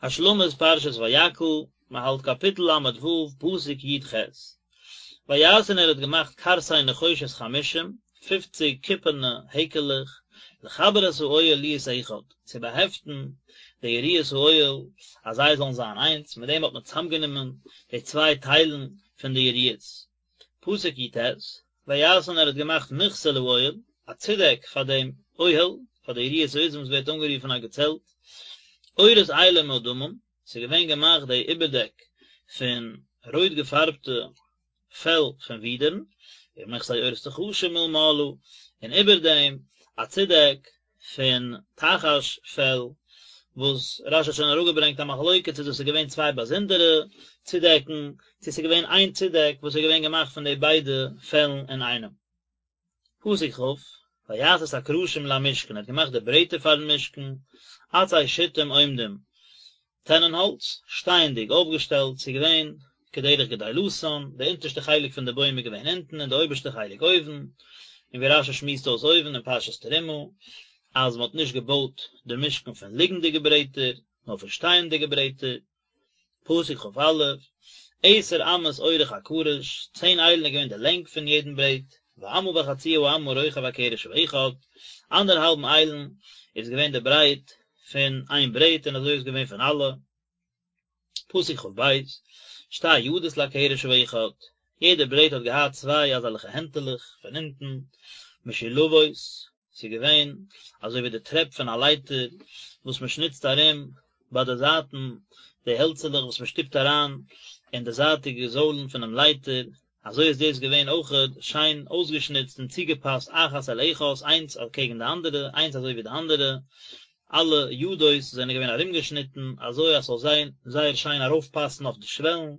השלמת פרשת ויקהל, מען האלט קאפיטל ל ו, פסוק י ח. ויעש און ער האט געמאכט קרסי נחושת חמשים, פופציג קופערנע העקעלעך, לחבר את האוהל להיות אחד, צו באהעפטן די יריעות האוהל אז זיי זאלן זיין איינס, מיט דעם האט מען צוזאמגענומען די צוויי טיילן פון די יריעות. פסוק י ט, ויעש און ער האט געמאכט מכסה לאוהל, א צודעק פאר דעם אוהל, פאר די יריעות העזים וואס ווערט אנגערופן א געצעלט, עורות אילים מאדמים, ס'איז געווען געמאכט די איבערדעק פון רויט געפארבטע פעל פון ווידערן, ומכסה עורות תחשים מלמעלה, און איבער דעם א צודעק פון תחש פעל, וואס רש י האט שוין אראפגעברענגט א מחלוקת צו דאס איז געווען צוויי באזונדערע צודעקן, צו ס'איז געווען איין צודעק וואס איז געווען געמאכט פון די ביידע פעלן אינאיינעם. פסוק כ', ויעש את הקרשים למשכן, ער האט געמאכט די ברעטער פארן משכן, עצי שיטים עומדים, טענען האלץ, שטייענדיג אויפגעשטעלט, ס'איז געווען כדרך גדילתן, די אונטערשטע חלק פון די בוים איז געווען אונטן און די אויבערשטע חלק אויבן, און ווי רש י שמועסט אויס אויבן אין פרשת תרומה, אז מ'האט נישט געבויט די משכן פון ליגנדיגע ברעטער, נאר פון שטייענדיגע ברעטער. פסוק כ א, עשר אמות אורך הקרש, צען איילן איז געווען די לענג פון יעדן ברעט, ואמה וחצי האמה רוחב הקרש האחד, אנדערהאלבן איילן איז געווען די ברייט פון איין ברעט און אזוי איז געווען פון אלע. פסוק כ ב, שתי ידות לקרש האחד, יעדע ברעט האט געהאט צוויי אזעלכע הענטעלעך פון אונטן, משולבות, ס'איז געווען אזוי ווי די טרעפ פון א לייטער וואס מען שניצט ארום ביי די זייטן, די העלצעלעך וואס מען שטופט אריין אין די זייטיגע זוילן פונעם לייטער, אזוי איז דאס געווען אויכעט שיין אויסגעשניצט און צוגעפאסט אחת אל אחת, איינס אקעגן די אנדערע, איינס אזוי ווי די אנדערע, אלע ידות זענען געווען ארומגעשניטן אזוי אז ס'זאל זיין זייער שיין ארויפפאסן אויף די שוועלן,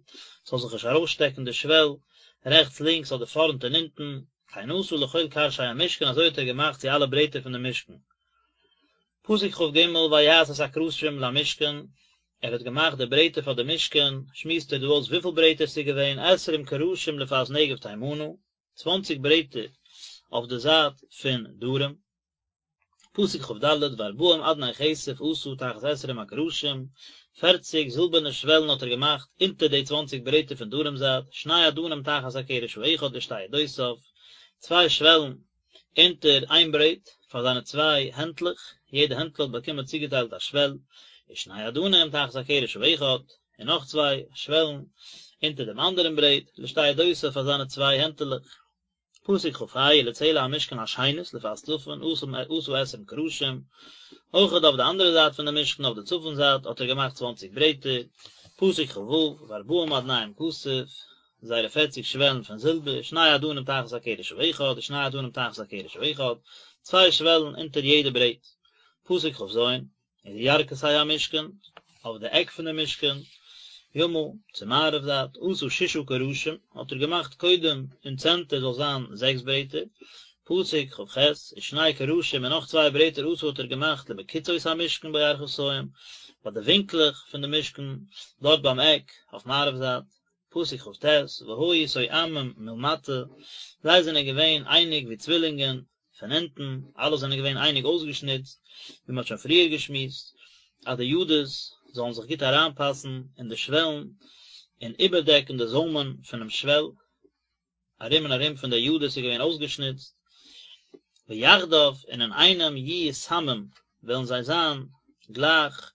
ס'זאל זיך נישט ארויסשטעקן די שוועל רעכטס לינקס אדער פארנט און הינטן, כן עשה לכל קרשי המשכן אזוי האט ער געמאכט צו אלע ברעטער פון דעם משכן. פסוק כ ג ויעש את הקרשים למשכן, ער האט געמאכט די ברעטער פאר די משכן, שמועסט ער דא אויס וויפיל ברעטער ס'איז געווען, עשרים קרשים לפאת נגב תימנה, צוואנציג ברעטער אויף די זייט פון דרום. פסוק כ ד, וארבעים אדני כסף עשה תחת עשרים הקרשים, פערציג זילבערנע שוועלן האט ער געמאכט אונטער די צוואנציג ברעטער פון דרום זייט, שני אדנים תחת הקרש האחד לשתי ידותיו, צוויי שוועלן אונטער איין ברעט פאר זיינע צוויי הענטלעך, יעדע הענטל האט באקומען צוגעטיילט א שוועל, ושני אדנים תחת הקרש האחד, און נאך צוויי שוועלן אונטער דעם אנדערן ברעט, לשתי ידותיו פאר זיינע צוויי הענטעלעך. פסוק כ ה, ולצלע המשכן השנית לפאת צפון עשה עשרים קרשים, אויכעט אויף די אנדערע זייט פון די משכן אויף די צפון זייט האט ער געמאכט צוואנציג ברעטער, פסוק כ ו, וארבעים אדניהם כסף, זייערע פערציג שוועלן פון זילבער, שני אדנים תחת הקרש האחד, ושני אדנים תחת הקרש האחד, צוויי שוועלן אונטער יעדע ברעט, פסוק כ ז, ולירכתי המשכן, אויף די עק פון די משכן, ימה, צו מערב זייט, עשה ששה קרשים, האט ער געמאכט קודם אין צענטער זאל זיין זעקס ברעטער, פסוק כ ח, ושני קרשים און נאך צוויי ברעטער עשה האט ער געמאכט למקצעות המשכן בירכתים, ביי די ווינקלעך פון די משכן, דארט ביים עק, אויף מערב זייט, פסוק כ ט, והיו תואמים מלמטה, זיי זענען געווען אייניג ווי צווילינגען, פון אונטן, אלע זענען געווען אייניג אויסגעשניצט, ווי מען האט שוין פריער געשמועסט, אז די ידות זאלן זיך גוט אריינפאסן אין די שוועלן, און איבערדעקן די זוימען פונעם שוועל, ארום און ארום פון די ידות איז געווען אויסגעשניצט, ויחדיו, און אינאיינעם יהיו תמים, וועלן זיי זיין גלייך,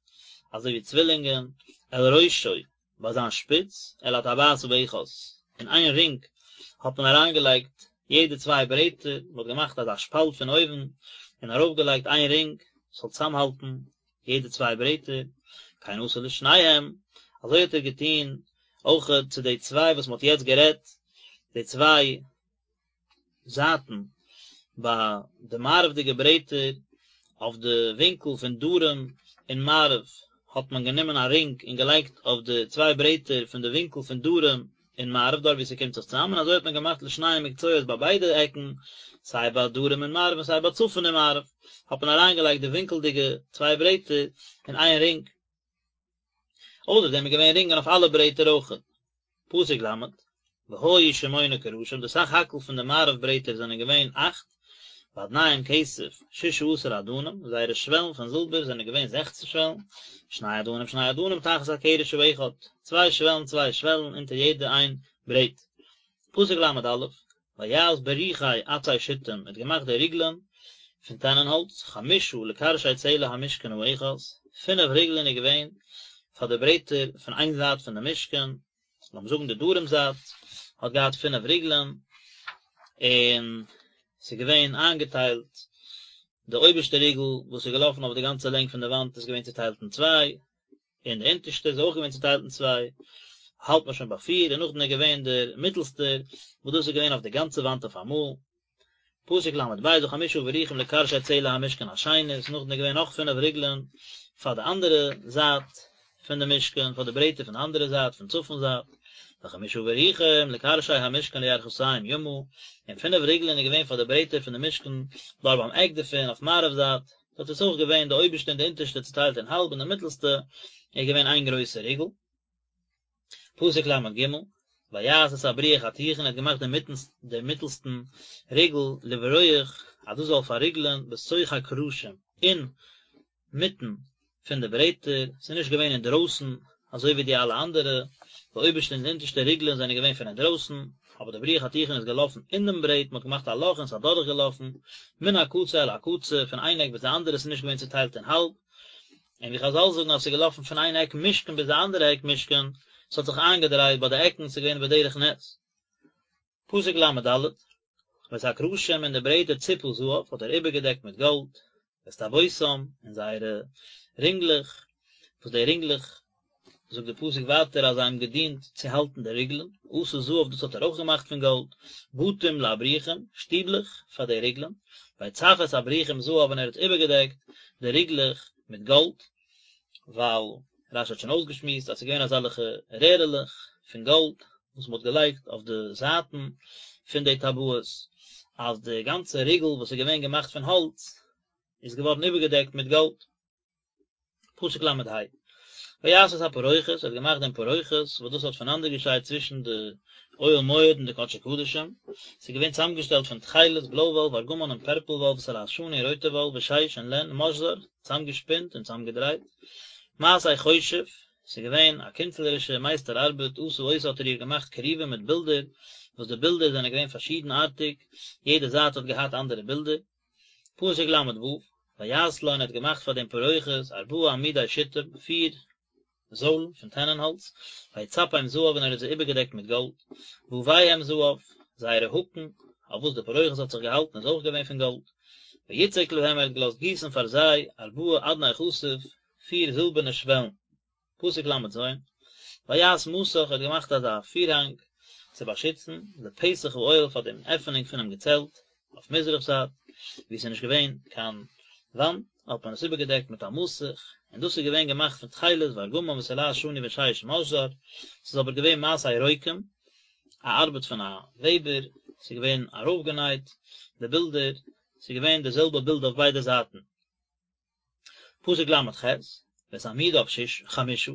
אזוי ווי צווילינגען, אל ראשו, ביי זיין שפיץ, אל הטבעת האחת, אין איין רינג האט מען אריינגעלייגט יעדע צוויי ברעטער, מען האט געמאכט אזא שפאלט פון אויבן און ארויפגעלייגט איין רינג ס'זאל צוזאמהאלטן יעדע צוויי ברעטער, כן עשה לשניהם, אזוי האט ער געטון אויכעט צו די צוויי וואס מען האט יעצט גערעדט, די צוויי זייטן ביי די מערב'דיגע ברעטער אויף די ווינקל פון דרום און מערב האט מען גענומען א רינג און געלייגט אויף די צוויי ברעטער פון די ווינקל פון דרום און מערב דארט וואו ס'קומט זיך צוזאם און אזוי האט מען געמאכט לשני מקצועות ביי ביידע עקן סיי ביי דרום און מערב און סיי ביי צפון און מערב האט מען אריינגעלייגט די ווינקלדיגע צוויי ברעטער אין איין רינג. אויסער דעם איז געווען רינגען אויף אלע ברעטער אויכעט. פסוק ל', והיו שמונה קרשים, די סך הכל פון די מערב ברעטער זענען געווען אכט, ואדניהם כסף ששה עשר אדנים, זייערע שוועלן פון זילבער זענען געווען זעכצן שוועלן, שני אדנים שני אדנים תחת הקרש האחד, צוויי שוועלן צוויי שוועלן אונטער יעדע איין ברעט. פסוק ל"א, ויעש בריחי עצי שטים, ער האט געמאכט די ריגלען פון טענענהאלץ, חמשה לקרשי צלע המשכן האחת, פינף ריגלען איז געווען פאר די ברעטער פון איין זייט פון די משכן, לאמיר זאגן די דרום זייט האט געהאט פינף ריגלען, און ס'איז געווען איינגעטיילט, די אויבערשטע ריגל וואס איז געלאפן אויף די גאנצע לענג פון די וואנט איז געווען צוטיילט אין צוויי, און די אונטערשטע איז אויך געווען צוטיילט אין צוויי, האלט מען שוין ביי פיר, און נאכדעם איז געווען דער מיטלסטער, וואס דאס איז געווען אויף די גאנצע וואנט אויף אמאל. פסוק ל"ב וחמשה בריחים לקרשי צלע המשכן השנית, נאכדעם איז געווען נאך פינף ריגלען פאר די אנדערע זייט פון די משכן, פאר די ברעטער פון די אנדערע זייט, פון צפון זייט, וחמשה בריחים לקרשי המשכן לירכתים ימה, און פינף ריגלען איז געווען פאר די ברעטער פון די משכן דארט ביים עק דערפון אויף מערב זייט, דארט איז אויך געווען די אויבערשטע און די אונטערשטע צוטיילט אין האלב און די מיטלסטע איז געווען איין גרויסע ריגל. פסוק ל"ג, ויעש את הבריח התיכון ער האט געמאכט דעם מיטלסטן ריגל לברוח אז דאס זאל פארריגלען בתוך הקרשים אין מיטן פון די ברעטער, ס'איז נישט געווען אינדרויסן אזוי ווי די אלע אנדערע, די אויבערשטע און די אונטערשטע ריגלען זענען געווען פון אינדרויסן, אבער די בריח התיכון איז געלאפן אין דעם ברעט, מ'האט געמאכט א לאך און ס'איז אדורך געלאפן, מן הקצה אל הקצה, פון איין עק ביז די אנדערע, ס'איז נישט געווען צוטיילט אין האלב, און ווי חזל זאגן אז ס'איז געלאפן פון איין עק משכן ביז די אנדערע עק משכן, ס'האט זיך איינגעדרייט ביי די עקן, ס'איז געווען בדרך נס. פסוק ל"ד, ואת הקרשים און די ברעטער צפה זהב האט ער איבערגעדעקט מיט גאלד, ואת טבעותם און זייערע רינגלעך, וואס די רינגלעך, זאגט די פסוק ווייטער אז זיי האבן געדינט צו האלטן די ריגלען, עשה זהב דאס האט ער אויך געמאכט פון גאלד, בתים לבריחים, שטיבלעך פאר די ריגלען, ויצף את הבריחים זהב און ער האט איבערגעדעקט די ריגלעך מיט גאלד, ווייל רש"י האט שוין אויסגעשמועסט אז ס'איז געווען אזעלכע רערעלעך פון גאלד וואס מ'האט געלייגט אויף די זייטן פון די טבעות, אז די גאנצע ריגל וואס איז געווען געמאכט פון האלץ איז געווארן איבערגעדעקט מיט גאלד. פסוק ל"ה, ויעש את הפרוכת, ער האט געמאכט דעם פרוכת, וואס דאס האט פונאנדערגעשיידט צווישן די אוהל מועד און די קדשי קדשים, ס'איז געווען צוזאמגעשטעלט פון תכלת, בלוי וואל, וארגמן און פערפל וואל, ותולעת שני און רויטע וואל, ושש און לען, משזר, צוזאמגעשפינט און צוזאמגעדרייט, מעשה חושב, ס'איז געווען א קונצלערישע מייסטער ארבעט, עשה אותה האט ער איר געמאכט כרובים מיט בילדער, וואס די בילדער זענען געווען פארשידנארטיג, יעדע זייט האט געהאט אנדערע בילדער. פסוק ל"ו, ויעש לו און ער האט געמאכט פאר דעם פרוכת ארבעה עמודי שטים, פיר זוילן פון טענענהאלץ, ויצפם זהב און ער האט זיי איבערגעדעקט מיט גאלד, וויהם זהב, זייערע האקן, אויף וואס די פרוכת האט זיך געהאלטן איז אויך געווען פון גאלד, ויצק להם ער האט געלאזט גיסן פאר זיי ארבעה אדני כסף, פיר זילבערנע שוועלן. פסוק ל"ז, ויעש מסך ער האט געמאכט אזא פירהאנג צו באשיצן לפתח האוהל פאר דעם עפענונג פונעם געצעלט אויף מזרח זייט, וואו עס איז נישט געווען קיין וואנט, האט מען עס איבערגעדעקט מיט א מסך, און דאס איז געווען געמאכט פון תכלת וארגמן ותולעת שני ושש משזר, ס'איז אבער געווען מעשה רוקם, א ארבעט פון א וועבער, ס'איז געווען ארויפגענייט די בילדער, ס'איז געווען די זעלבע בילד אויף ביידע זייטן. פסוק ל"ח, ואת עמודיו שש חמשה,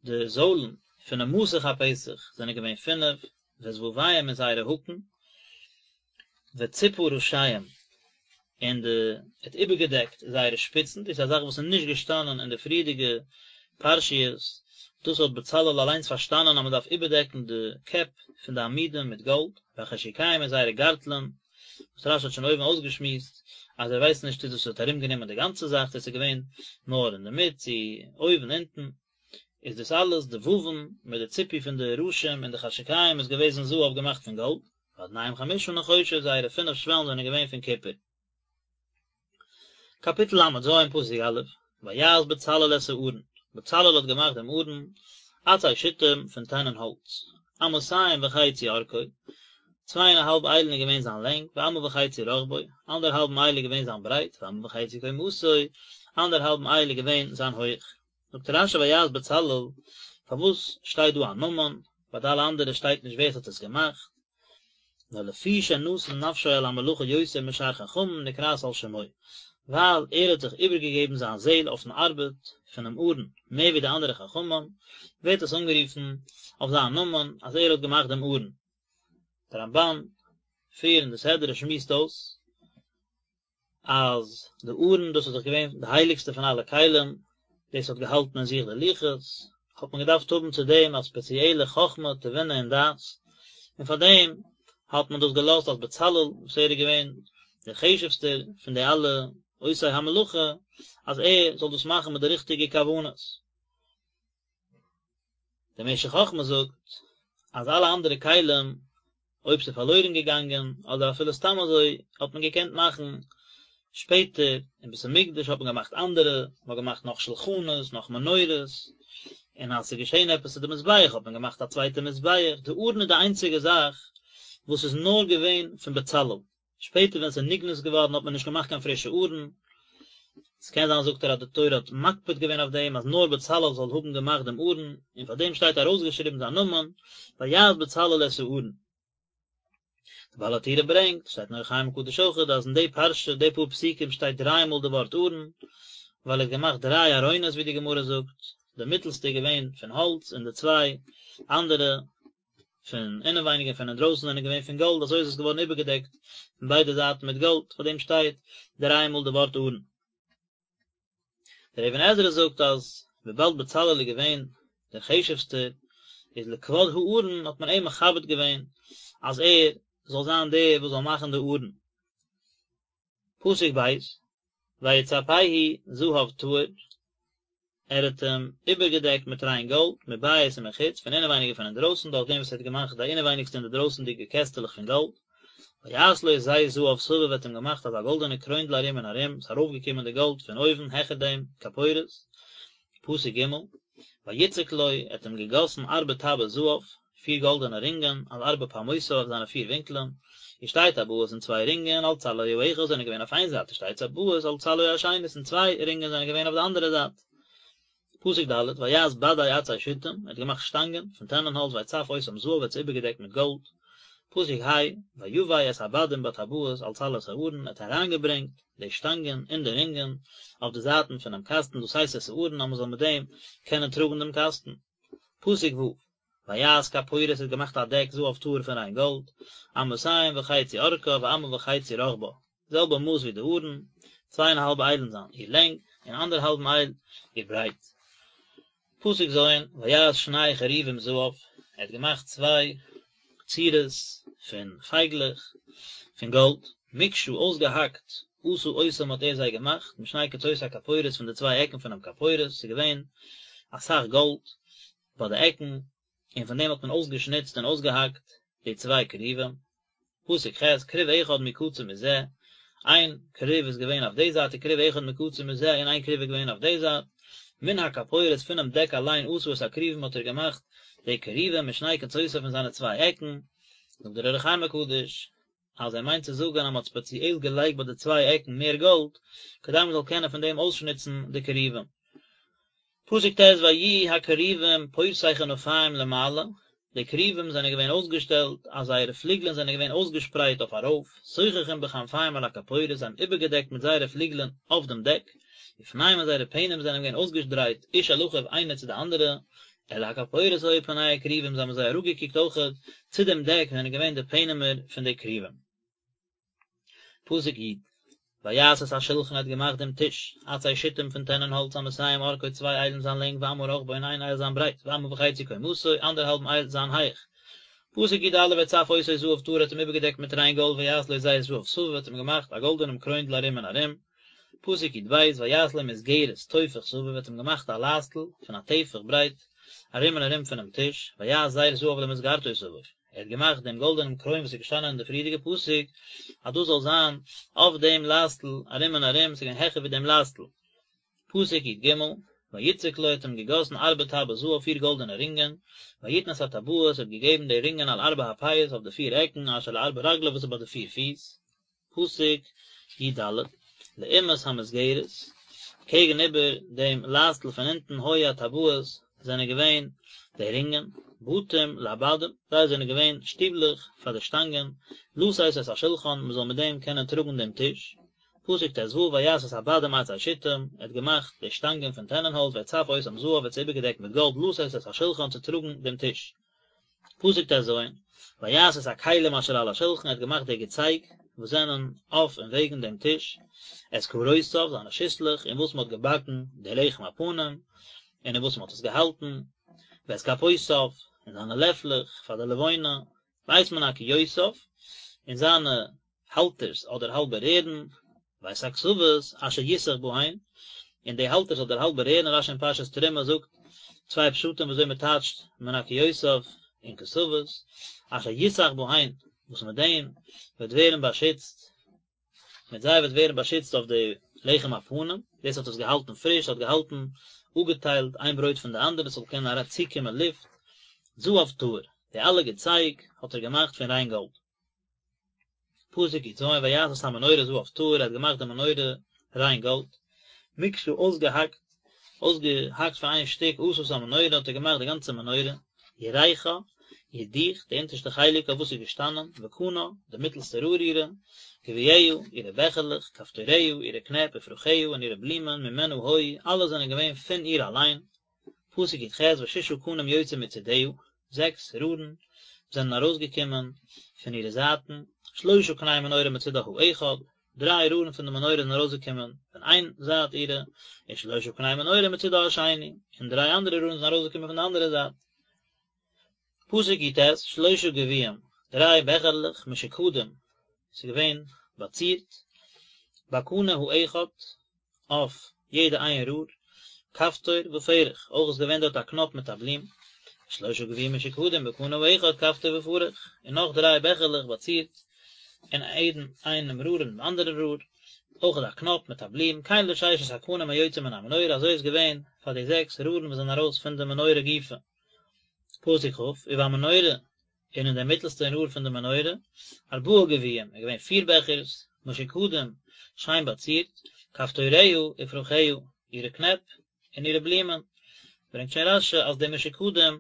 די זוילן פונעם מסך הפתח זענען געווען פינף, ואת וויהם און זייערע האקן, וצפה ראשיהם, און די האט איבערגעדעקט זייערע שפיצן, דאס איז א זאך וואס איז נישט געשטאנען אין די פריערדיגע פרשיות, דאס האט בצלאל אליינס פארשטאנען אז מען דארף איבערדעקן די קעפ פון די עמודים מיט גאלד, והחשוקיהם און זייערע גארטלען, וואס רש"י האט שוין אויבן אויסגעשמועסט אז ער ווייסט נישט צו דאס האט ארומגענומען די גאנצע זאך צו עס איז געווען נאר אינדערמיט צו אויבן אונטן, איז דאס אלעס די ווון מיט די ציפוי פון די ראשים און די חשוקיהם איז געוועזן זהב געמאכט פון גאלד, ואדניהם חמשה נחושת זייערע פינף שוועלן זענען געווען פון קופער. קאפיטל ל"ז פסוק א', ויעש בצלאל את הארון, בצלאל האט געמאכט דעם ארון, עצי שיטים פון טענען האלץ, אמתים וחצי ארכו, צוויי און א האלב איילן איז געווען זיין לענג, ואמה וחצי רחבו, אנדערהאלבן אייל איז געווען זיין ברייט, ואמה וחצי קומתו, אנדערהאלבן אייל איז געווען זיין הויך. זאגט רש"י ויעש בצלאל, פארוואס שטייט דא א נאמען, ביי די אלע אנדערע שטייט נישט ווער עס האט עס געמאכט, נאר לפי שנתן נפשו על המלאכה יותר משאר חכמים נקראת על שמו, ווייל ער האט זיך איבערגעגעבן זיין זעהל אויפן ארבעט פונעם ארון מער ווי די אנדערע חכמים, ווערט עס אנגערופן אויף זיין נאמען אז ער האט געמאכט דעם ארון. דער רמב"ן, פריער אין די סדרה שמועסט אויס. אז די ארון דאס איז דאך געווען די הייליגסטע פון אלע כלים, דאס האט געהאלטן אין זיך די לוחות, האט מען געדארפט האבן צו דעם א ספעציעלע חכמה, תבונה און דעת, און פאר דעם האט מען דאס געלאזט אז בצלאל, וואס ער איז געווען דער חשוב'סטער פון די אלע עושי המלאכה, אז ער זאל דאס מאכן מיט די ריכטיגע כוונות. דער משך חכמה זאגט אז אלע אנדערע כלים אויב ס'איז פארלוירן געגאנגען אדער אפילו סתם אזוי האט מען געקענט מאכן שפעטער, אין בית המקדש האט מען געמאכט אנדערע, מען האט געמאכט נאך שלחנות, נאך מנורות, און אז ס'איז געשען עפעס צו די מזבח האט מען געמאכט א צווייטע מזבח, די ארון איז די איינציגע זאך וואס איז נאר געווען פון בצלאל. שפעטער ווען ס'איז נגנז געווארן האט מען נישט געמאכט קיין פרישע ארון, ס'קען זיין זאגט ער אז די תורה האט מקפיד געווען אויף דעם אז נאר בצלאל זאל האבן געמאכט דעם ארון, און פאר דעם שטייט ארויסגעשריבן זיין נאמען, ויעש בצלאל את הארון. די בעל הטורים ברענגט, שטייט אין אור החיים הקדוש אויכעט, אז אין די פרשה, די פאר פסוקים שטייט דריי מאל די ווארט ארון, ווייל ער האט געמאכט דריי ארונות ווי די גמרא זאגט, די מיטלסטע איז געווען פון האלץ און די צוויי אנדערע פון אינעווייניג און פון אינדרויסן זענען געווען פון גאלד, אזוי איז עס געווארן איבערגעדעקט פון ביידע זייטן מיט גאלד, פאר דעם שטייט דריי מאל די ווארט ארון. דער אבן עזרא זאגט אז וויבאלד בצלאל איז געווען דער חשוב'סטער, איז לכבוד הארון האט מען אים מכבד געווען אז ער זאל זיין דער וואס זאל מאכן די ארון. פסוק ב', ויצפהו זהב טהור, ער האט אים איבערגעדעקט מיט ריין גאלד, מבית ומחוץ, פון אינעווייניג און פון אינדרויסן, דורך דעם וואס ער האט געמאכט די אינעווייניגסטע און די דרויסנדיגע קעסטעלעך פון גאלד. ויעש לו זר זהב סביב, ער האט אים געמאכט אזא גאלדענע קרוינדל ארום און ארום, ס'איז ארויפגעקומען די גאלד פון אויבן העכער דעם כפורת. פסוק ג', ויצק לו, ער האט אים געגאסן ארבע טבעות זהב, פיר גאלדענע רינגען, על ארבע פעמותיו אויף זיינע פיר ווינקלען, ושתי טבעות און צוויי רינגען, על צלעו האחד זענען געווען אויף איין זייט, ושתי טבעות על צלעו השנית און צוויי רינגען זענען געווען אויף די אנדערע זייט. פסוק ד', ויעש בדי עצי שיטים, ער האט געמאכט שטאנגען פון טענענהאלץ ויצף אותם זהב ער האט זיי איבערגעדעקט מיט גאלד. פסוק ה', ויבא את הבדים בטבעות על צלעות הארון, ער האט אריינגעברענגט די שטאנגען אין די רינגען אויף די זייטן פונעם קאסטן לשאת את הארון אז מען זאל מיט דעם קענען טראגן דעם קאסטן. פסוק ו', ויעש כפורת האט געמאכט א דעק זהב טהור פון ריין גאלד, אמתים וחצי ארכה ואמה וחצי רחבה, זעלבע מאס ווי די ארון, צוויי און א האלב איילן זיין איר לענג, און אנדערהאלבן אייל איר ברייט. פסוק ז', ויעש שני כרובים זהב, ער האט געמאכט צוויי צורות פון פייגלעך פון גאלד, מקשה אויסגעהאקט, עשה אותם האט ער זיי געמאכט, משני קצות הכפורת פון די צוויי עקן פונעם כפורת, ס'איז געווען אסאך גאלד ביי די עקן, און פון דעם האט מען אויסגעשניצט און אויסגעהאקט די צוויי כרובים. פסוק ח', כרוב אחד מקצה מזה, איין כרוב איז געווען אויף די זייט וכרוב אחד מקצה מזה און איין כרוב איז געווען אויף די זייט, מן הכפורת פונעם דעק אליין עשה את הכרובים האט ער געמאכט די כרובים משני קצותיו פון זיינע צוויי עקן, זאגט דער אור החיים הקדוש אז ער מיינט צו זאגן אז מען האט ספעציעל געלייגט ביי די צוויי עקן מער גאלד כדי מען זאל קענען פון דעם אויסשניצן די כרובים. פסוק ט' ויהיו הכרובים פורשי כנפים למעלה, די כרובים זענען געווען אויסגעשטעלט אז זייערע פליגלען זענען געווען אויסגעשפרייט אויף ארויף, סוככים בכנפיהם על הכפורת, זיי האבן איבערגעדעקט מיט זייערע פליגלען אויף דעם דעק, ופניהם און זייערע פענים זענען געווען אויסגעדרייט איש אל אחיו איינער צו די אנדערע, אל הכפורת היו פני הכרובים, זיי האבן זיי אראפגעקוקט אויכעט צו דעם דעק זענען געווען די פענימער פון די כרובים. פסוק י', ויעש את השלחן ער האט געמאכט דעם טיש, עצי שיטים פון טענען האלץ אמתים ארכו צוויי איילן זיין לענג ואמה רחבו און איין אייל זיין ברייט ואמה וחצי קומתו אנדערהאלבן אייל זיין הייך. פסוק י"א ויצף אותו זהב טהור האט אים איבערגעדעקט מיט ריין גאלד ויעש לו זר זהב סביב האט אים געמאכט א גאלדענעם קרוינדל ארום און ארום. פסוק י"ב ויעש לו מסגרת טופח סביב האט אים געמאכט א לייסטל פון א טפח ברייט ארום און ארום פונעם טיש ויעש זר זהב למסגרתו סביב. ער האט געמאכט דעם גאלדענעם קרוין וואס איז געשטאנען אין די פריערדיגע פסוק, אז דאס זאל זיין אויף דעם לייסטל ארום און ארום, ס'איז געווען העכער ווי דעם לייסטל. פסוק י"ג, ויצק לו האט אים געגאסן ארבע טבעות זהב פיר גאלדענע רינגען, ויתן את הטבעות האט געגעבן די רינגען על ארבע הפאות אויף די פיר עקן אשר לארבע רגליו וואס איז ביי די פיר פיס. פסוק י"ד, לעומת המסגרת, קעגן איבער דעם לייסטל פון אונטן היו הטבעות זענען געווען די רינגען, בתים לבדים, זיי זענען געווען שטיבלעך פאר די שטאנגען, לשאת את השלחן, מען זאל מיט דעם קענען טראגן דעם טיש. פסוק ט"ו, ויעש את הבדים עצי שיטים, ער האט געמאכט די שטאנגען פון טענענהאלץ, ויצף אותם זהב, ער האט זיי איבערגעדעקט מיט גאלד, לשאת את השלחן, צו טראגן דעם טיש. פסוק ט"ז, ויעש את הכלים אשר על השלחן, ער האט געמאכט די געצייג. וואס זענען אויף און וועגן דעם טיש, את קרותיו, זיינע שיסלעך, אין וואס מען האט געבאקן די לחם הפנים, און אין וואס מען האט עס געהאלטן, ואת כפותיו, און זיינע לעפלעך פאר די לבונה, ואת מנקיותיו, און זיינע האלטערס אדער האלבע רערן, ואת הכתפות אשר יותך בהן, און די האלטערס אדער האלבע רערן, רשי אין פרשת תרומה זאגט צוויי פשטים ווי אזוי מען טייטשט מנקיותיו און כתפות, אשר יותך בהן, וואס מיט דעם וועט ווערן באשיצט, מיט זיי וועט ווערן באשיצט אויף די לחם הפנים, דאס האט עס געהאלטן פריש, האט געהאלטן אפגעטיילט איין ברויט פון די אנדערע, עס זאל קענען אריין צוקומען לופט, זהב טהור, די אלע געצייג האט ער געמאכט פון ריין גאלד. פסוק י"ז ויעש את המנורה זהב טהור ער האט געמאכט די מנורה ריין גאלד, מקשה אויסגעהאקט, אויסגעהאקט פון איין שטיק עשה את המנורה האט ער געמאכט די גאנצע מנורה, ירכה, איר דיך, די אונטערשטע חלק אויף וואס איז געשטאנען, וקנה, די מיטלסטע רער אירע, גביעיה, אירע בעכערלעך, כפתוריה, אירע קנעפ, ופרחיה, און אירע בלומען, ממנה היו, אלע זענען געווען פון איר אליין, פסוק י"ח וששה קנים יוצאים מצדיה, זעקס רארן זענען ארויסגעקומען פון אירע זייטן, שלשה קני מנורה מצידה האחד, דריי רארן פון די מנורה זענען ארויסגעקומען פון איין זייט אירע, ושלשה קני מנורה מצידה השני, און דריי אנדערע רארן זענען ארויסגעקומען פון די אנדערע זייט. פסוק י"ט, שלשה גביעים, דריי בעכערלעך, משוקדים, ס'איז געווען באצירט, בקנה האחד, אויף יעדע איין רור, כפתור ופרח, אויך איז געווען דארט א קנאפ מיט א בלום, שלשה גביעים משוקדים בקנה האחד כפתור ופרח, און נאך דריי בעכערלעך באצירט אין יעדן איינעם רור און דעם אנדערן רור, אויך א קנאפ מיט א בלום, כן לששת הקנים היוצאים מן המנורה, אזוי איז געווען פאר די זעקס רארן וואס זענען ארויס פון די מנורה גופא. פסוק כ', ובמנורה, און אין דער מיטלסטען רור פון די מנורה, ארבעה גביעים, איז געווען פיר בעכערס, משוקדים, שיין באצירט, כפתוריה ופרחיה, אירע קנעפ, און אירע בלומען. ברענגט שוין רש"י אז די משוקדים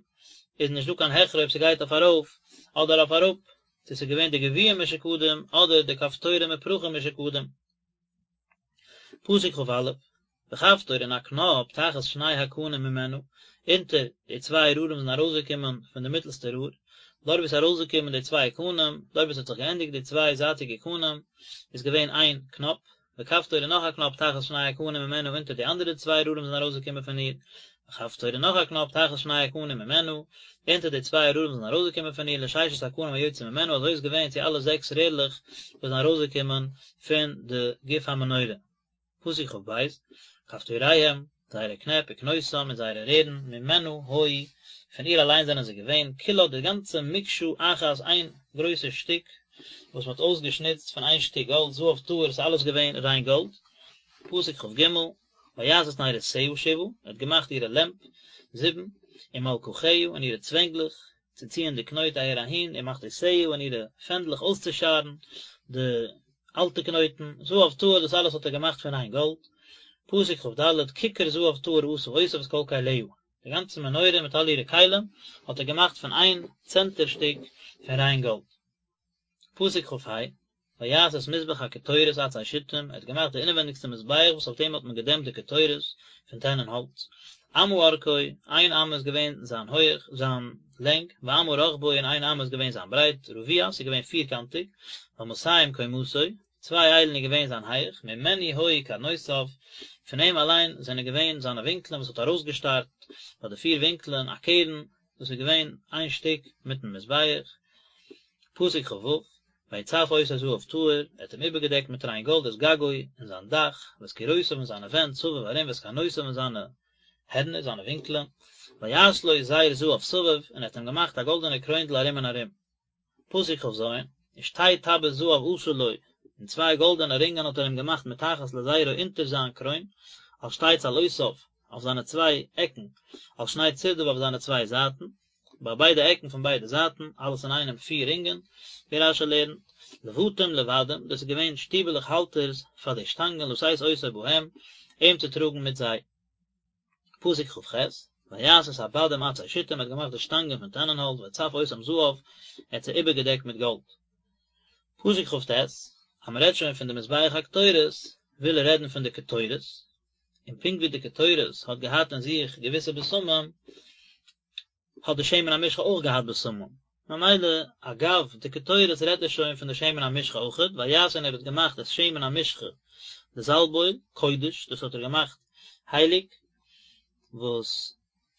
איז נישט דא קיין הכרע אויב ס'גייט אויף ארויף אדער אויף אראפ, צו ס'איז געווען די גביעים משוקדים אדער די כפתורים ופרחים משוקדים. פסוק כ"א, וכפתור און א קנאפ תחת שני הקנים ממנה, אונטער די צוויי רארן וואס זענען ארויסגעקומען פון די מיטלסטע רור, דארט וואו עס איז ארויסגעקומען די צוויי קנים, דארט וואו עס האט זיך געענדיגט די צוויי זייטיגע קנים, איז געווען איין קנאפ, וכפתור און נאך א קנאפ תחת שני הקנים ממנה אונטער די אנדערע צוויי רארן וואס זענען ארויסגעקומען פון איר, וכפתור און נאך א קנאפ תחת שני הקנים ממנה, אונטער די צוויי רארן וואס זענען ארויסגעקומען פון איר, לששת הקנים היוצאים ממנה, אזוי איז געווען צו אלע זעקס רערלעך וואס זענען ארויסגעקומען פון די גוף המנורה. פסוק כ"ב, כפתוריהם, זייערע קנעפ, וקנותם, און זייערע רערן, ממנה היו, פון איר אליין זענען זיי געווען, כולה די גאנצע מקשה אחת איין גרויסע שטיק, וואס מען האט אויסגעשניצט פון איין שטיק גאלד, זהב טהור, ס'איז אלעס געווען ריין גאלד. פסוק כ"ג, ויעש את נרותיה שבעה, ער האט געמאכט אירע לעמפ, זיבן, ומלקחיה, און אירע צווענגלעך, צו ציען די קנויט אהער אהין, ומחתותיה און אירע פענדלעך אויסצושארן די אלטע קנויטן, זהב טהור, דאס אלעס האט ער געמאכט פון ריין גאלד. פסוק כ"ד, ככר זהב טהור עשה אותה ואת כל כליה, די גאנצע מנורה מיט אלע אירע כלים האט ער געמאכט פון איין צענטער שטיק פון ריין גאלד. פסוק כ"ה, ויעש את מזבח הקטורת עצי שיטים, ער האט געמאכט די אינעווענדיגסטע מזבח וואס אויף דעם האט מען געדעמפט די קטורת פון טענען האלץ, אמה ארכו, איין אמה איז געווען זיין הויך, זיין לענג, ואמה רחבו און איין אמה איז געווען זיין ברייט, רבוע, ס'איז געווען פירקאנטיג, ואמתים קומתו, צוויי איילן איז געווען זיין הייך, ממנו היו קרנותיו, פון אים אליין זענען געווען זיינע ווינקלען וואס האט ארויסגעשטארט ביי די פיר ווינקלען א קרן, דאס איז געווען איין שטיק מיטן מזבח, פסוק כ"ו, ויצף אותו זהב טהור, ער האט אים איבערגעדעקט מיט ריין גאלד את גגו און זיין דאך, ואת קירותיו און זיינע ווענט סביב ארום ואת קרנותיו און זיינע הערנער, זיינע ווינקלען, ויעש לו זר זהב סביב, און ער האט אים געמאכט א גאלדענע קרוינדל ארום און ארום. פסוק כ"ז, ושתי טבעות זהב עשה לו, און צוויי גאלדענע רינגען האט ער אים געמאכט מתחת לזרו אונטער זיין קרוין, על שתי צלעותיו, אויף זיינע צוויי עקן, על שני צדיו אויף זיינע צוויי זייטן, ביי ביידע עקן פון ביידע זייטן, אלעס אינאיינעם פיר רינגען, ווי רש"י לערנט, לבתים לבדים, דאס איז געווען שטיבעלעך האלטערס פאר די שטאנגען לשאת אותו בהם, אים צו טראגן מיט זיי. פסוק כ"ח, ויעש את הבדים עצי שיטים, ער האט געמאכט די שטאנגען פון טענענהאלץ, ויצף אותם זהב, ער האט זיי איבערגעדעקט מיט גאלד. פסוק כ"ט, אז מען רעדט שוין פון די מזבח הקטורת, וויל ער רעדן פון די קטורת, און פונקט ווי די קטורת האט געהאט אין זיך געוויסע בשמים, האט די שמן המשחה אויך געהאט בשמים. ממילא אגב די קטורת רעדט ער שוין פון די שמן המשחה אויכעט, ויעש און ער האט געמאכט את שמן המשחה די זאלב אויל, קודש, דאס האט ער געמאכט הייליג, וואס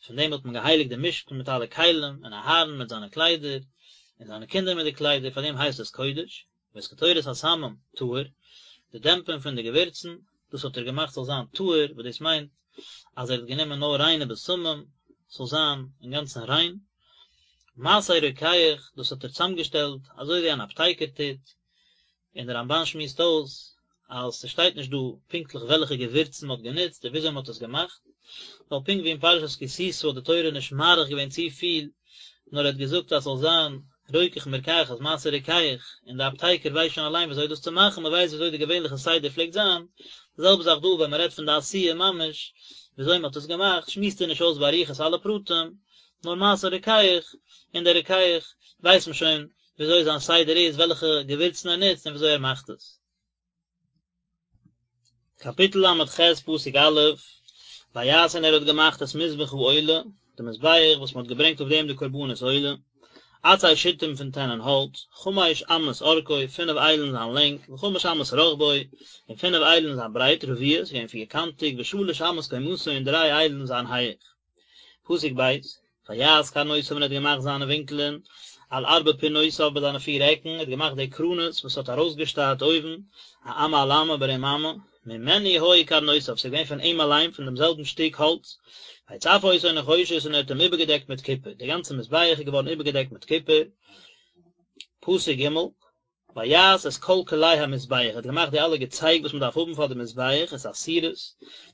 פון דעם האט מען געהייליגט די משכן מיט אלע כלים, און אהרן מיט זיינע קליידער, און זיינע קינדער מיט די קליידער, פאר דעם הייסט עס קודש. ואת קטורת הסמים טהור, די דעמפען פון די געווירצן, דאס האט ער געמאכט זאל זיין טהור, וואס דאס מיינט אז ער האט גענומען נאר ריינע בשמים, ס'זאל זיין אינגאנצן ריין. מעשה רוקח, דאס האט ער צוזאמגעשטעלט אזוי ווי אן אפטייקער טוט, און דער רמב"ן שמועסט אויס אז ס'שטייט נישט דא פונקטליך וועלכע געווירצן מ'האט גענוצט און וויאזוי מ'האט עס געמאכט, ווייל פונקט ווי אין פרשת כי תשא האט די תורה נישט מאריך געווען צופיל, נאר ער האט געזאגט אז ס'זאל זיין רוקח מרקחת מעשה רוקח, און די אפטייקער ווייסט שוין אליין וויאזוי דאס צו מאכן, מ'ווייסט וויאזוי די געווענליכע סדר פלעגט זיין, די זעלבע זאך דא ווען מ'רעדט פון די עשיה ממש, וויאזוי מ'האט עס געמאכט, שמועסט ער נישט אויס באריכות אלע פרטים, נאר מעשה רוקח, און דער רוקח ווייסט מען שוין וויאזוי זיין סדר איז, וועלכע געווירצן ער נוצט און וויאזוי ער מאכט עס. קאפיטל ל"ח פסוק א', ויעש און ער האט געמאכט את מזבח העולה, די מזבח וואס מען האט געברענגט אויף דעם די קרבנות עולה, עצי שיטים פון טענען האלץ, חמש אמות ארכו, פינף איילן זיין לענג, וחמש אמות רחבו, און פינף איילן זיין ברייט, רבוע, ס'איז געווען פירקאנטיג, ושלש אמות קומתו און דריי איילן זיין הייך. פסוק ב', ויעש קרנותיו און ער האט געמאכט זיינע ווינקלען על ארבע פינותיו ביי זיינע פיר עקן, ער האט געמאכט די קרנות וואס האט ארויסגעשטארט אויבן, א אמה על אמה ברום אמה, ממנו היו קרנותיו, ס'איז געווען פון אים אליין, פון דעם זעלבן שטיק האלץ, ויצף אותו נחושת און ער האט אים איבערגעדעקט מיט קופער, דער גאנצער מזבח איז געווארן איבערגעדעקט מיט קופער. פסוק ג', ויעש את כל כלי המזבח, ער האט געמאכט די אלע געצייג וואס מען דארף האבן פאר די מזבח, את הסירות,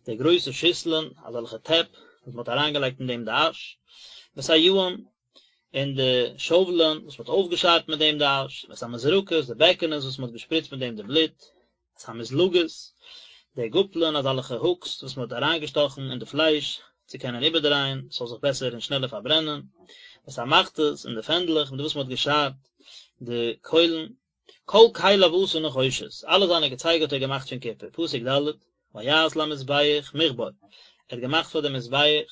די גרויסע שיסלען, אזעלכע טעפ, וואס מען האט אריינגעלייגט אין דעם די אש, ואת היעים, און די שאוולען, וואס מען האט אויפגעשארט מיט דעם די אש, ואת המזרקות, די בעקענעס וואס מען האט געשפריצט מיט דעם די בלוט, את המזלגות, די גאפלען, אזעלכע הוקס וואס מען האט אריינגעשטאכן אין די פלייש צו קענען איבערדרייען, ס'זאל זיך בעסער און שנעלער פארברענען, ואת המחתות, און די פענדלעך מיט וואס מען האט געשארט די קוילן, כל כליו עשה נחושת, אלע זיינע געצייג האט ער געמאכט פון קופער, פסוק ד', ויעש למזבח מכבר, ער האט געמאכט פאר די מזבח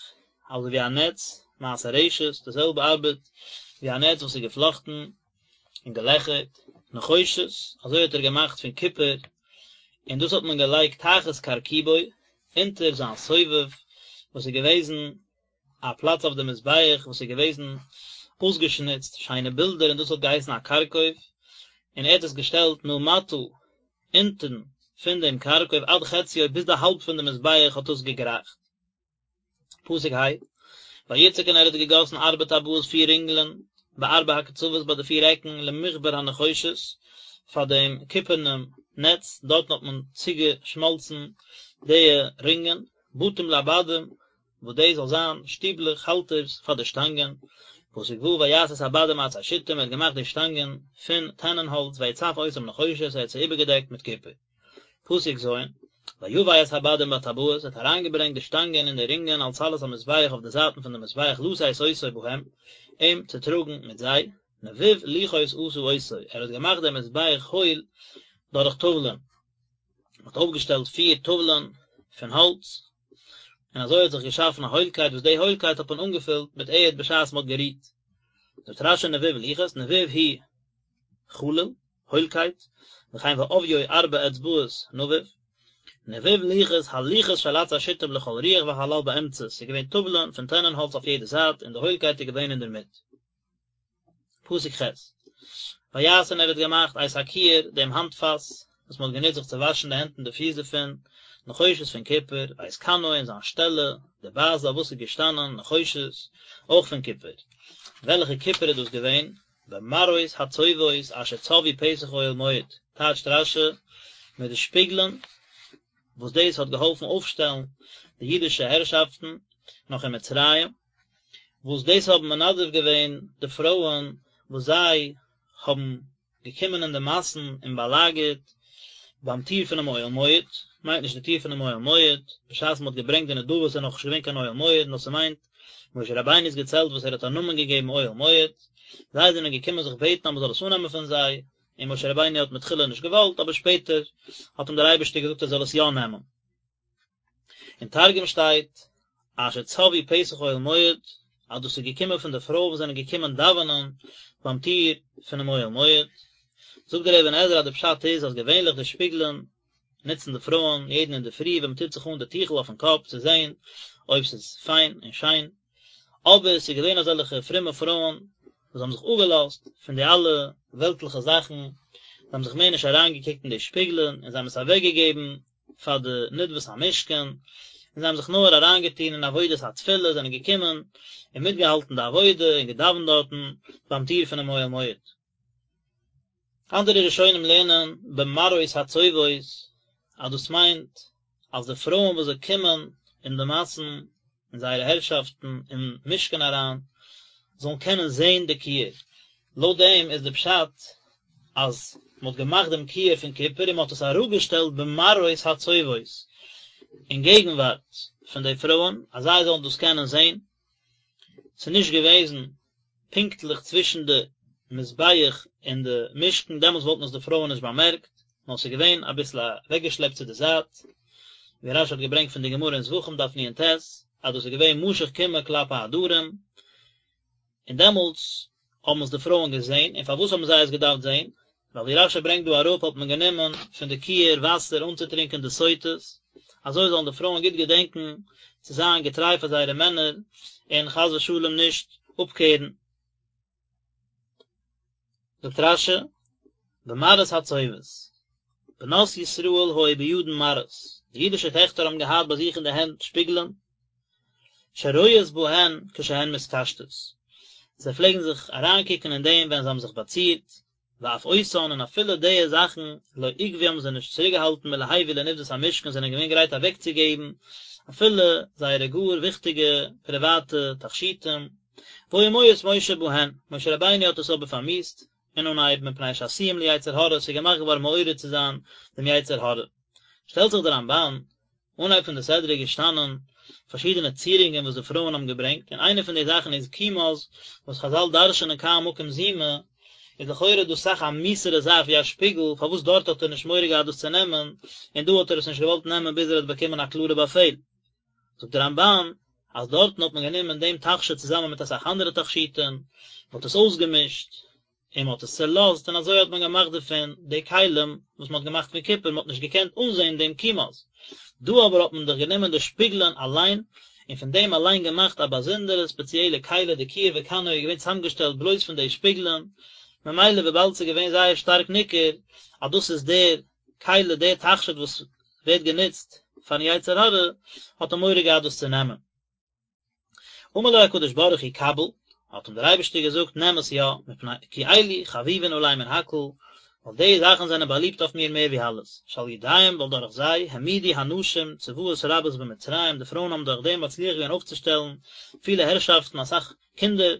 אזוי ווי א נעץ, מעשה רשת, די זעלבע ארבעט ווי א נעץ וואס איז געפלאכטן און געלעכערט, נחושת, אזוי האט ער געמאכט פון קופער, און דאס האט מען געלייגט תחת כרכובו, אונטער זיין סובב, וואס איז געוועזן א פלאץ אויף די מזבח וואס איז געוועזן אויסגעשניצט שיינע בילדער און דאס האט געהייסן א כרכוב, און ער האט עס געשטעלט מלמטה אונטן פון דעם כרכוב עד חציו ביז די האלב פון די מזבח האט דאס געגרייכט. פסוק ה', ויצק און ער האט געגאסן ארבע טבעות פיר רינגלען בארבע הקצוות ביי די פיר עקן למכבר הנחושת פאר דעם קופערנעם נעץ, דארטן האט מען צוגעשמאלצן די רינגען, בתים לבדים וואס דאס זאל זיין שטיבלעך, האלטערס, פאר די שטאנגען, פסוק ו' ויעש את הבדים עצי שיטים, ער האט געמאכט די שטאנגען פון טענען האלץ, ויצף אותם נחושת, ער האט זיי איבערגעדעקט מיט קופער. פסוק ז', ויבא את הבדים בטבעות, ער האט אריינגעברענגט די שטאנגען אין די רינגען על צלעות המזבח אויף די זייטן פון די מזבח לשאת אותו בהם, אים צו טראגן מיט זיי, נבוב לוחות עשה אותו, ער האט געמאכט דעם מזבח הויל דורך טאוולען. מען האט אויפגעשטעלט פיר טאוולען פון האלץ, און אזוי האט זיך געשאפן א הוילקייט וואס די הוילקייט האט מען אנגעפילט מיט ערד בשעת מען האט גערוהט. זאגט רש"י נבוב לוחות, נבוב הוא חלול, הוילקייט, וכן ועביו ארבע אצבעות נבוב, נבוב לוחות, הלוחות של עצי שיטים לכל רוח והחלל באמצע, ס'איז געווען טאוולען פון טענען האלץ אויף יעדע זייט און די הוילקייט איז געווען אינדערמיט. פסוק ח', ויעש און ער האט געמאכט את הכיור, דעם האנטפאס, וואס מען האט גענוצט זיך צו וואשן די הענט און די פיס דערפון, נחושת פון קופער, ואת כנו און זיין שטעלע, די באזע אויף וואס איז געשטאנען, נחושת, אויך פון קופער. וועלכע קופער איז דאס געווען? במראות הצובאות אשר צבאו פתח אוהל מועד, טייטשט רש"י, מיט די שפיגלען, וואס דאס האט געהאלפן אויפשטעלן די אידישע הערשאפטן נאך אין מצרים, וואס דאס האבן מנדב געווען די פרויען וואס זיי האבן געקומען אין די מאסן און באלאגערט ביים טיר פונעם אוהל מועד, מיינט נישט די טיר פונעם אוהל מועד, בשעת מען האט געברענגט די נדבות איז נאכנישט געווען קיין אוהל מועד, נאר ס'מיינט משה רבינו'ס געצעלט וואס ער האט א נאמען געגעבן אוהל מועד, זיי זענען געקומען זיך בעטן אז מען זאל עס אננעמען פון זיי, און משה רבינו האט מתחילה נישט געוואלט, אבער שפעטער האט אים דער אייבערשטער געזאגט ער זאל עס יא נעמען. אין תרגום שטייט אשר צבאו פתח אוהל מועד. אז דאס איז געקומען פון די פרויען וואס זענען געקומען דאווענען ביים טיר פונעם אוהל מועד. זאגט דער אבן עזרא אז די פשט איז אז געווענליך די שפיגלען נוצן די פרויען יעדן אינדערפרי ווען מען טוט זיך אן די טיכל אויפן קאפ צו זען אויב ס'איז פיין און שיין, אבער ס'איז געווען אזעלכע פרומע פרויען וואס האבן זיך אפגעלאזט פון די אלע וועלטליכע זאכן, זיי האבן זיך מער נישט אריינגעקוקט אין די שפיגלען און זיי האבן עס אוועקגעגעבן פאר די נדבת המשכן, און זיי האבן זיך נאר אריינגעטון אין עבודת התפילה, זענען געקומען און מיטגעהאלטן די עבודה און געדאווענט דארטן ביים טיר פונעם אוהל מועד. אנדערע ראשונים לערנען במראות הצובאות אז דאס מיינט אז די פרויען וואס זיי קומען אין די מאסן אין זייערע הערשאפטן אין משכן אריין זאלן קענען זען די כיור, לויט דעם איז די פשט אז מען האט געמאכט דעם כיור פון קופער און מען האט עס אראפגעשטעלט במראות הצובאות אין געגנווארט פון די פרויען אז זיי זאלן דאס קענען זען, ס'איז נישט געוועזן פונקטליך צווישן די מזבח און די משכן, דעמאלטס וואלטן עס די פרויען נישט באמערקט, נאר ס'איז געווען אביסל אוועקגעשלעפט צו די זייט, ווי רש"י האט געברענגט פון די גמרא אין זבחים דף נ"ט, אז דאס איז געווען משוך קימעא כלפי הדרום, און דעמאלטס האבן עס די פרויען געזען, און פארוואס האבן זיי עס געדארפט זען? ווייל ווי רש"י ברענגט דא אראפ האט מען גענומען פון די כיור וואסער אנצוטרינקען די סוטות, אזוי זאלן די פרויען גוט געדענקען צו זיין געטריי פאר זייערע מענער און חס ושלום נישט אפקערן. זאגט רש"י, במראות הצובאות, בנות ישראל היו בידן מראות, די אידישע טעכטער האבן געהאט ביי זיך אין די הענט שפיגלען, שרואות בהן כשהן מתקשטות, זיי פלעגן זיך אריינקוקן אין דעם ווען זיי האבן זיך באצירט, ואף אותן און אפילו די זאכן לא עכבו האבן זיי נישט צוריקגעהאלטן מלהביא לנדבת המשכן זענען געווען גרייט אוועקצוגעבן אפילו זייערע גאר וויכטיגע פריוואטע תכשיטים, והיה מואס משה בהן, משה רבינו האט עס אבער פארמיאוסט אין אנהייב מפני שעשויים ליצר הרע, ס'איז געמאכט געווארן מעורר צו זיין דעם יצר הרע. שטעלט זיך דער רמב"ן אנהייב פון די סדרה איז געשטאנען פארשידענע צירונגען וואס די פרויען האבן געברענגט, און איינע פון די זאכן איז כומז, וואס חז"ל דרש'נען כאן מקום זימה, איז לכאורה דאס אסאך א מיאוס'ערע זאך ווי א שפיגל, פארוואס דארט האט ער נישט מורא געהאט דאס צו נעמען, און דא האט ער עס נישט געוואלט נעמען ביז ער האט באקומען א קלארע באפעל. זאגט דער רמב"ן, אז דארטן האט מען גענומען דעם תכשיט צוזאמען מיט אסאך אנדערע תכשיטים, מען האט עס אויסגעמישט, און מען האט עס צעלאזט און אזוי האט מען געמאכט דערפון די כלים וואס מען האט געמאכט פון קופער, מען האט נישט געקענט אנזען דעם כומז. דא אבער האט מען דאך גענומען די שפיגלען אליין, און פון דעם אליין געמאכט א באזונדערע ספעציעלע כלי, די כיור וכנו איז געווען צוזאמגעשטעלט בלויז פון די שפיגלען, ממילא וויבאלד ס'איז געווען זייער שטארק ניכר אז דאס איז דער כלי, דער תכשיט וואס ווערט גענוצט פארן יצר הרע, האט ער מורא געהאט דאס צו נעמען. אמר לו הקדוש ברוך הוא קבל, האט אים דער אייבערשטער געזאגט נעם עס יא, מפני כי אלו חביבין עלי מן הכל, ווייל די זאכן זענען באליבט אויף מיר מער ווי אלעס, שעל ידיהם ווייל דורך זיי, העמידו הנשים צבאות רבות במצרים, די פרויען האבן דורך דעם מצליח געווען אויפצושטעלן פילע הערשאפטן אסאך קינדער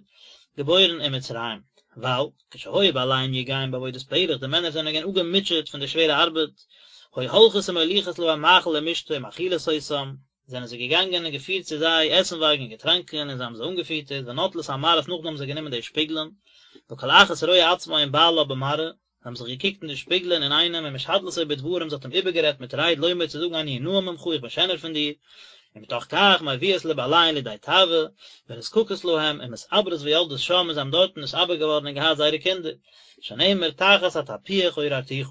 געבוירן אין מצרים, ווייל, כשהיו בעליהם יגעים בעבודת פרך, די מענער זענען געווען אפגעמוטשעט פון די שווערע ארבעט, היו הולכות ומוליכות להם מאכל ומשתה ומאכילות אותם, זענען זיי געגאנגען און געפירט צו זיי עסנווארג און געטראנקען, און זיי האבן זיי אנגעפיטערט, ונוטלות המראות נאכדעם האבן זיי גענומען די שפיגלען, וכל אחת רואה עצמה עם בעלה במראה, זיי האבן זיך געקוקט אין די שפיגלען אינאיינעם, ומשדלתו בדברים, זי האט אים איבערגערעדט מיט רייד לומר צו זאגן אני נאה ממך איך בין שענער פון דיר, ומתוך כך מביאות לבעליהן לידי תאווה, ונזקקות להם, ומתעברות ויולדות שם, און זיי האבן דארטן נתעבר געווארן און געהאט זייערע קינדער, שנאמר תחת התפוח עוררתיך.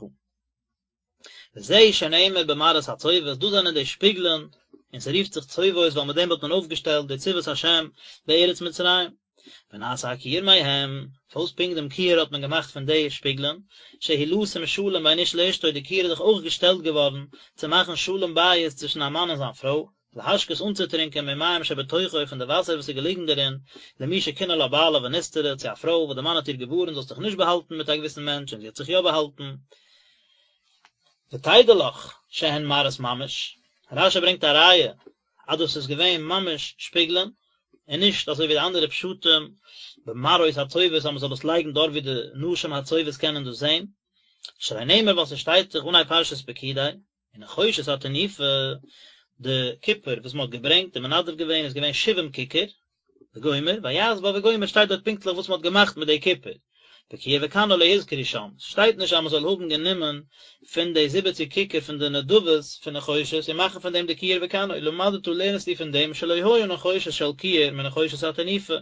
וזה שנאמר במראות הצובאות, דאס זענען די שפיגלען, און ס'רופט זיך צובאות ווייל מיט דעם האט מען אויפגעשטעלט די צבאות השם בארץ מצרים. ונעשה הכיור מהם, פארוואס פונקט דעם כיור האט מען געמאכט פון די שפיגלען, שהוא לשום שלום בין איש לאשתו, די כיור איז דאך אויך געשטעלט געווארן צו מאכן שלום בית צווישן א מאן און זיין פרוי, להשקות אנצוטרינקען ממים שבתוכו פון די וואסער וואס איז געליגן דערין, למי שקינא לה בעלה ונסתרה, צו א פרוי וואס די מאן האט איר געווארנט זאלסט דיך נישט באהאלטן מיט א געוויסן מענטש און זי האט זיך יא באהאלטן. ותדע לך שהן מראות ממש, רש"י ברענגט א ראיה אז דאס איז געווען ממש שפיגלען, און נישט אזוי ווי די אנדערע פשטים במראות הצובאות אז מען זאל עס לייגן דארט ווי די נשים הצובאות קענען דאס זען, שהרי נאמר ווייל ס'שטייט דאך אנהייב פרשת פקודי, ונחושת התנופה, די קופער וואס מען האט געברענגט און מנדב געווען איז געווען שבעים ככר, וגומר, ויעש בה וגומר שטייט דארט פונקטליך וואס מען האט געמאכט מיט די קופער. וכיור וכנו לא הוזכרו שם, ס'שטייט נישט אז מ'זאל האבן גענומען פון די זיבעציג ככר פון די נדבות פון נחושת און מאכן פון דעם די כיור וכנו, למדת לערנסטו פון דעם שלא היה נחושת של כיור מנחושת התנופה,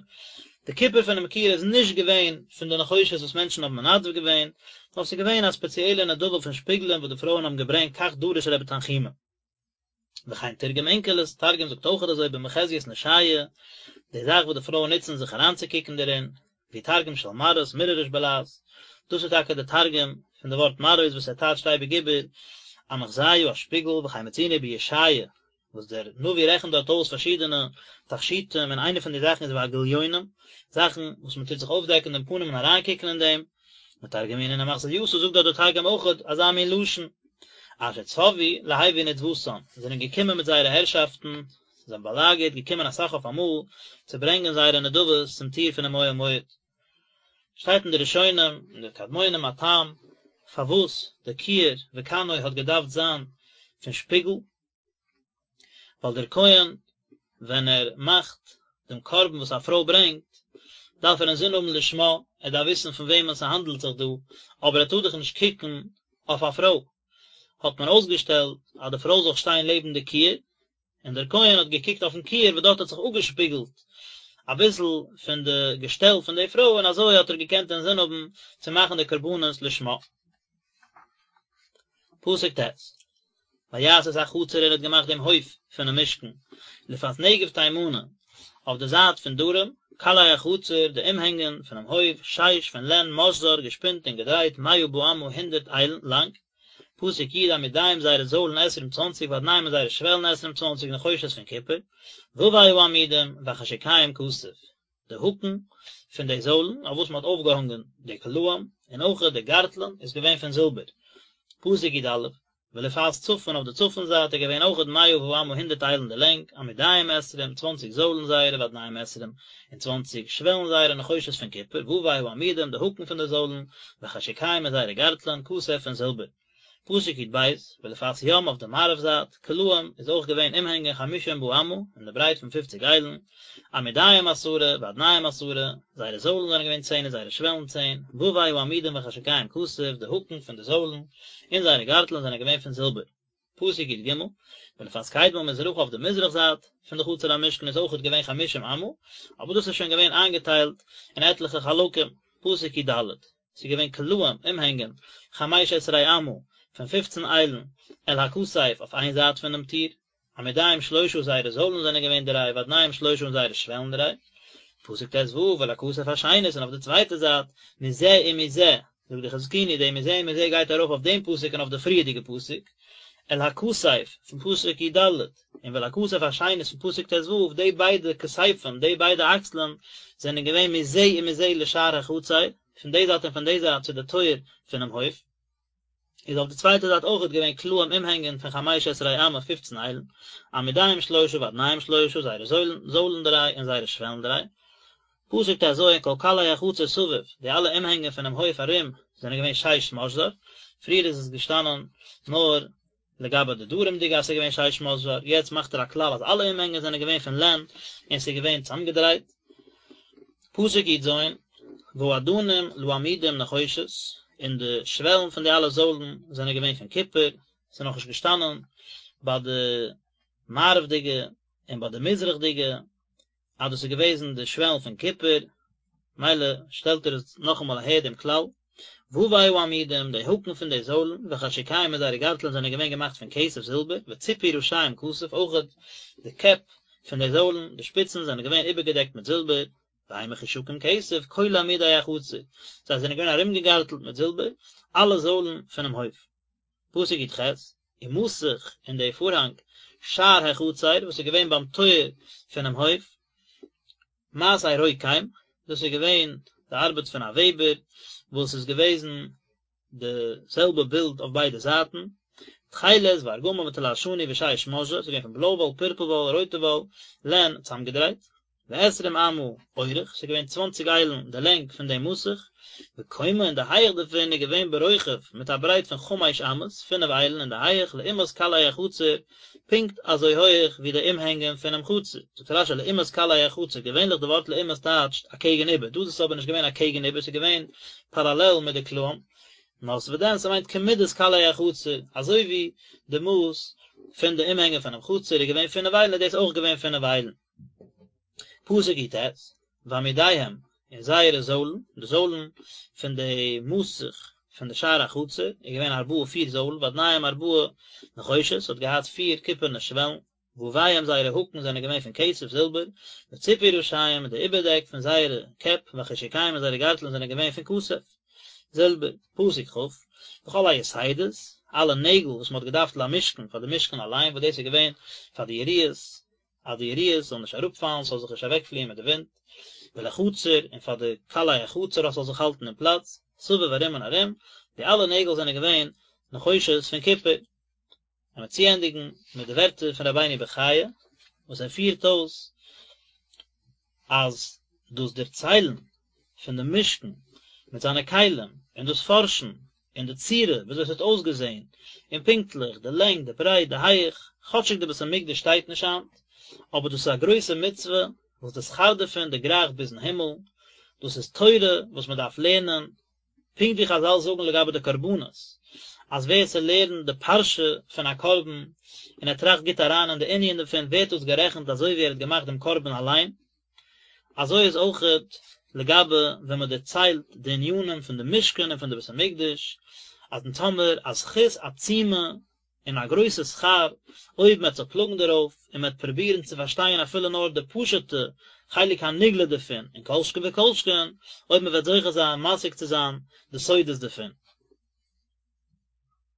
די קופער פונעם כיור איז נישט געווען פון די נחושת וואס מענטשן האבן מנדב געווען, נאר ס'איז געווען א ספעציעלע נדבה פון שפיגלען וואס די פרויען האבן געברענגט כך דרש רבי תנחומא. וכן תרגם אונקלוס, תרגום זאגט אויכעט אזוי במחזיית נשיא, די זאך וואס די פרויען נוצן זיך אריינצוקוקן דערין, והוא תרגום של מראות, מירעריש בלע"ז, דאס איז טאקע די תרגום פון די ווארט מראות וואס ער טייטשט אייביג איבער א מחזייא א שפיגל, וכן מצינו בישעיה, וואס דער נביא רעכנט דארט אויס פארשידענע תכשיטים און איינע פון די זאכן איז והגליונים, זאכן וואס מען טוט זיך אויפדעקן דעם פנים און אריינקוקן אין דעם, מתרגמינן אמחזייתא זאגט דארט דער תרגום אויכעט אזא מין לשון, אשר צוו להביא נדבתן, זיי זענען געקומען מיט זייערע הערשאפטן, זיי האבן באלאגערט, געקומען אסאך אויף אמאל, צו ברענגען זייערע נדבות צום טיר פונעם אוהל מועד. שטייט אין די ראשונים און די קדמונים א טעם פארוואס די כיור וכנו האט געדארפט זיין פון שפיגל, ווייל דער כהן ווען ער מאכט דעם קרבן וואס א פרוי ברענגט, דארף ער אינזין האבן לשמה, ער דארף וויסן פון וועמען ס'האנדלט זיך דא, אבער ער טאר דאך נישט קוקן אויף א פרוי. האט מען אויסגעשטעלט אז די פרוי זאל שטיין לעבן די כיור, און דער כהן האט געקוקט אויפן כיור וואס דארט האט זיך אפגעשפיגלט אביסל פון די געשטעל פון די פרוי, און אזוי האט ער געקענט אינזין האבן צו מאכן די קרבנות לשמה. פסוק ט', ויעש את החצר ער האט געמאכט דעם הויף פונעם משכן, לפאת נגב תימנה, אויף די זייט פון דרום, קלעי החצר, די אומהענגען פונעם הויף, שיש פון לען, משזר, געשפינט און געדרייט, מאה באמה, הונדערט איילן, לאנג. פסוק י' עמודיהם זייערע זוילן עשרים צוואנציג ואדניהם און זייערע שוועלן עשרים צוואנציג נחושת פון קופער, ווי העמודים, וחשוקיהם כסף. די האקן פון די זוילן אויף וואס מען האט אויפגעהאנגען די קלעים, און אויכעט די גארטלען איז געווען פון זילבער. פסוק י"א, ולפאת צפון אויף די צפון זייט איז געווען אויכעט מאה באמה הונדערט איילן די לענג, עמודיהם עשרים, צוואנציג זוילן זייערע ואדניהם עשרים, און צוואנציג שוועלן זייערע נחושת פון קופער, ווי העמודים די האקן פון די זוילן, וחשוקיהם און זייערע גארטלען, כסף פון זילבער. פסוק י"ב, ולפאת ים אויף די מערב זייט, קלעים, איז אויך געווען אומהענגען חמשים באמה, אין די ברייט פון פופציג איילן, עמודיהם עשרה, ואדניהם עשרה, זייערע זוילן זענען געווען צען און זייערע שוועלן צען, ווי העמודים וחשוקיהם כסף, די האקן פון די זוילן, און זייערע גארטלען זענען געווען פון זילבער. פסוק י"ג, ולפאת קדמה מזרחה אויף די מזרח זייט פון די חצר המשכן איז אויכעט געווען חמשים אמה, אבער דאס איז שוין געווען איינגעטיילט אין עטליכע חלקים, פסוק י"ד, ס'איז געווען קלעים, אומהענגען, חמש עשרה אמה, פון פופצן איילן, אל הכתף, אויף איין זייט פונעם טיר, עמודיהם שלשה זייערע זוילן זענען געווען דריי, ואדניהם שלשה און זייערע שוועלן דריי. פסוק ט"ו, ואל הכתף השנית, און אויף די צווייטע זייט, מזה ומזה, זאגט די חזקוני, די מזה ומזה גייט ארויף אויף דעם פסוק און אויף די פריערדיגע פסוק, אל הכתף, פון פסוק י"ד, און ואל הכתף השנית פון פסוק ט"ו, די ביידע כתפים, די ביידע אקסלען, זענען געווען מזה ומזה לשער החצר, פון די זייט און פון די זייט צו די טויער פונעם הויף, איז אויף די צווייטע זייט אויכעט געווען קלעים אומהענגען פון חמש עשרה אמה פופצן איילן, עמודיהם שלשה ואדניהם שלשה, זייערע זוילן, זוילן דריי און זייערע שוועלן דריי. פסוק ט"ז כל קלעי החצר סביב, די אלע אומהענגען פונעם הויף ארום זענען געווען שש משזר, פריער איז עס געשטאנען נאר לגבי די דרומ'דיגע אז ס'איז געווען שש משזר, יעצט מאכט ער א כלל אז אלע אומהענגען זענען געווען פון לען און ס'איז געווען צוזאמגעדרייט. פסוק י"ז, והאדנים לעמודים נחושת, און די שוועלן פון די אלע זוילן זענען געווען פון קופער, ס'איז נאכנישט געשטאנען ביי די מערב'דיגע און ביי די מזרח'דיגע, אז דאס איז געוועזן די שוועלן פון קופער, מילא שטעלט ער עס נאכאמאל אהער דעם כלל, ווי העמודים, די האקן פון די זוילן, וחשוקיהם און זייערע גארטלען זענען געווען געמאכט פון כסף זילבער, וצפוי ראשיהם כסף, אויכעט די קעפ פון די זוילן, די שפיצן, זענען געווען איבערגעדעקט מיט זילבער, והם מחושקים כסף, כל עמודי החצר, זיי זענען געווען ארומגעגארטלט מיט זילבער, אלע זוילן פונעם הויף. פסוק י"ח, ומסך און די פארהאנג שער החצר וואס איז געווען ביים טויער פונעם הויף, מעשה רוקם, דאס איז געווען די ארבעט פון א וועבער, וואס איז געוועזן די זעלבע בילד אויף ביידע זייטן, תכלת וארגמן ותולעת שני ושש משזר, ס'איז געווען פון בלוי וואל, פורפל וואל, רויטע וואל, לען, צוזאמגעדרייט. ועשרים אמה אורך, ס'איז געווען צוואנציג איילן די לענג פון דעם מסך, וקומה און די הייעך דערפון איז געווען ברוחב מיט א ברייט פון חמש אמות, פינף איילן אין די הייעך, לעומת קלעי החצר, פונקט אזוי הויעך ווי די אומהענגען פונעם חצר. זאגט רשי לעומת קלעי החצר, געווענליך די ווארט לעומת טייטשט אקעגן איבער, דא איז עס אבער נישט געווען אקעגן איבער, ס'איז געווען פאראלעל מיט די קלעים, נאר וואדען ס'מיינט כמידת קלעי החצר, אזוי ווי די מאס פון די אומהענגען פונעם חצר איז געווען פינף איילן איז דאס אויך געווען פינף איילן. פסוק יט, ועמודיהם, און זייערע זוילן, די זוילן פון די מסך פון די שער החצר איז געווען ארבעה פיר זוילן, ואדניהם ארבעה נחושת, ס'האט געהאט פיר קופערנע שוועלן, וויהם זייערע האקן זענען געווען פון כסף, זילבער, וציפוי ראשיהם און די איבערדעק פון זייערע קעפ, וחשוקיהם און זייערע גארטלען זענען געווען פון כסף, זילבער. פסוק כ, וכל היתדות, אלע נעגל וואס מען האט געדארפט למשכן פאר די משכן אליין, וואס דאס איז געווען פאר די יריעות, אז די יריעות זאלן נישט אראפפאלן, ס'זאל זיך נישט אוועקפליען מיט די ווינט, ולחצר, און פאר די קלעי החצר אז ס'זאל זיך האלטן אין פלאץ, סביב ארום און ארום, די אלע נעגל זענען געווען נחושת פון קופער. און מיר צוענדיגן מיט די ווערטער פון רבינו בחיי וואס ער פירט אויס אז דאס דערציילן פון די משכן מיט זיינע כלים און דאס פארשן אין די צורה וויאזוי עס האט אויסגעזען און פונקטליך די לענג די ברייט די הייך, כאטשיג די בית המקדש שטייט נישט היינט, אבער דאס איז א גרויסע מצוה וואס די שכר דערפון דערגרייכט ביזן הימל, דאס איז תורה וואס מען דארף לערנען, פונקט ווי חזל זאגן לגבי די קרבנות, אז ווער ס'לערנט די פרשה פון א קרבן און ער טראכט גוט אריין אין די ענין דערפון ווערט דאס גערעכנט אזוי ווי ער האט געמאכט דעם קרבן אליין, אזוי איז אויכעט לגבי ווען מען דערציילט די ענינים פון די משכן און פון די בית המקדש, אז אונז האמיר א זכות עצומה און א גרויסע שכר אויב מען וועט זיך פלאגן דערויף און מען וועט פרובירן צו פארשטיין אפילו נאר די פשוט'ע חלק הנגלה דערפון, און כל שכן וכל שכן אויב מען וועט זוכה זיין משיג צו זיין די סודות דערפון.